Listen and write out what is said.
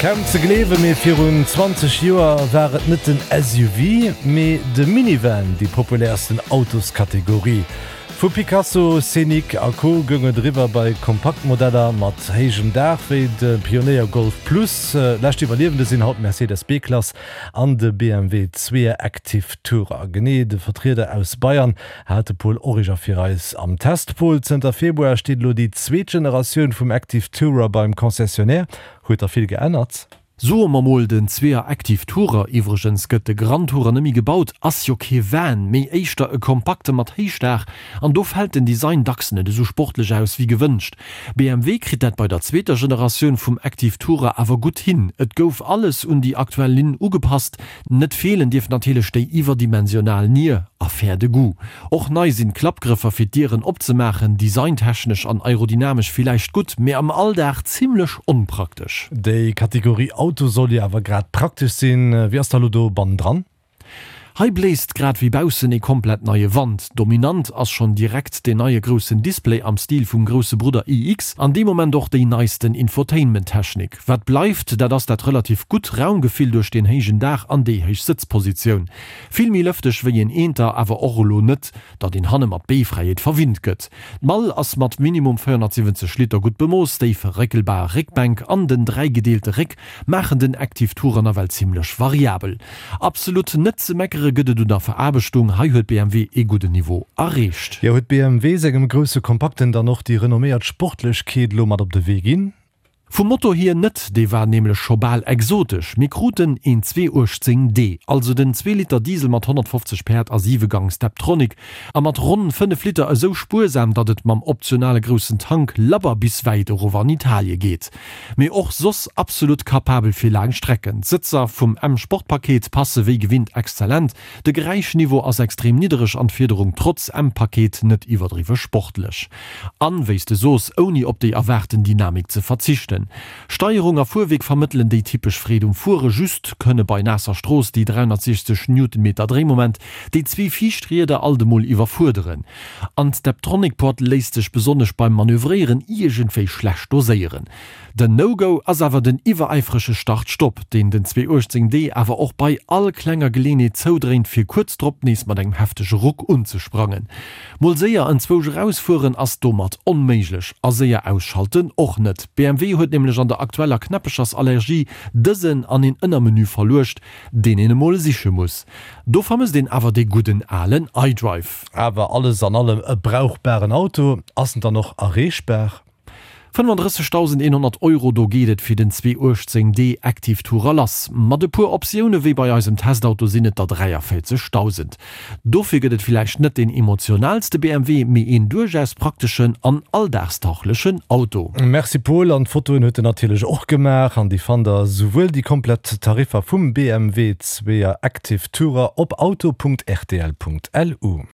Kaum ze gleewen, mee virun 20 Joer war et net den SUV, mee de Minivan déi populärsten Autoskategorie. Vu Picasso, Scénic a Co. Goung et eriwwer bei Kompaktmodeller mat héijem Daach wéi de Pionéier Golf Plus. Lescht Iwwerliewende sinn haut d'Mercedes B-Klass an de BMW Zweeër Active Tourer. Genee de Vertrieder aus Bayern hat de Paul Origer fir eis am Test. Paul, zënter Februar steet elo déi zweet Generatioun vum Active Tourer beim Concessionnaire. Huet da vill geännert? Soe mer mol, den Zweeër Active Tourer, iwwregens gëtt de Grand Tourer nëmmi gebaut, ass jo kee Van, mee éischter e kompakte mat Héichdaach, an do fält den Design dacks net esou sportlech aus wéi gewënscht. BMW kritt dat bei der zweeter Generatioun vum Active Tourer awer gutt hin. Et gouf alles un déi aktuell Linn ugepasst. Net feelen dierf natierlech déi iwwerdimensional Nier, Affaire de goût. Och nei sinn d'Klappgrëffer fir d'Dieren opzemaachen, designtechnesch an aerodynamesch villäicht gutt, mee am Alldag zimmlech onpraktesch. Déi Kategorie Auto soll jo awer grad praktesch sinn. Wéi ass da lo do bannendran? Hei bléist grad wéi baussen ee komplett neie Wand. Dominant ass schonn direkt deen neie groussen Display am Stil vum grousse Brudder iX an dee Moment och déi neisten Infotainment-Technik. Wat bleift, dat ass dat relativ gutt Raumgefill duerch deen héijen Daach an déi héich Sëtzpositioun. Vill méi lëfteg wéi een Eenter, awer och elo net, datt een hanne mat Beefräiheet verwinnt gëtt. D'Mall ass mat minimum 470 Liter gutt bemooss, déi verréckelbar Réckbänk an den dräigedeelte Réck maachen den Active Tourer nawell zimlech variabel. Absolut net ze meckere gëtt et un der Veraarbechtung, hei huet BMW ee gudden Niveau erreecht. Jo, huet BMW sengem grousse Kompakten dann och déi renomméiert Sportlechkeet elo mat op de Wee ginn? Vum Motor hier net, dee war nämlech scho bal exotesch. Mir kruten een 218 D, also den Zweeliter Diesel mat 150 Päerd a 7 Gang Steptronic, a mat ronn 5 Liter esou spuersam, datt et mam optionale groussen Tank labber bis wäit erof an Italie geet. Mee och soss absolut kapabel fir laang Strecken. D'Sëtzer vum M-Sport-Paket passe wéi gewinnt exzellent, de Geräischniveau ass extrem niddereg an d'Fiederung trotz M-Paket net iwwerdriwwe sportlech. An, wéi s de soos, ouni op déi erwaarten Dynamik ze verzichten. Steierung a Fuerwierk vermëttelen déi typesch Freed um Fuere, just kënne bei naasser Strooss déi 360 Newtonmeter Dréimoment déi zwee viischt Rieder alt emol iwwerfuerderen. An d'Steptronic-Pod léisst sech besonnesch beim Manövréieren iergendwéi schlecht doséieren. Den No-Go ass awer den iwweräifrege Start-Stopp, deen den 218 D awer och bei all klenger Geleenheet zoudréint, fir kuerz drop nees mat engem heftege Ruck unzesprangen. Mol séier enzwousch erausfueren ass domat onméiglech a séier ausschalten och net. BMW huet nämlech an der aktueller Knäppechersallergie dësen an een Ënnermenü verluecht, deen een emol siche muss. Do vermësst een awer dee gudden alen iDrive. Awer alles an allem e brauchbaren Auto. Ass en dann och erreechbar? 35.100 Euro, do geet et fir den 218 D Active Tourer lass. Mat e puer Optioune wéi bei eisem Testauto sinn et der 43.000. Dofir gëtt et villäicht net deen emotionaalste BMW, mee een duerchaus prakteschen an alldagstauglechen Auto. Merci Paul, an d'Fotoen huet en natierlech och gemaach an déi fannt der souwuel déi komplett Tariffer vum BMW 2er Active Tourer op auto.rtl.lu.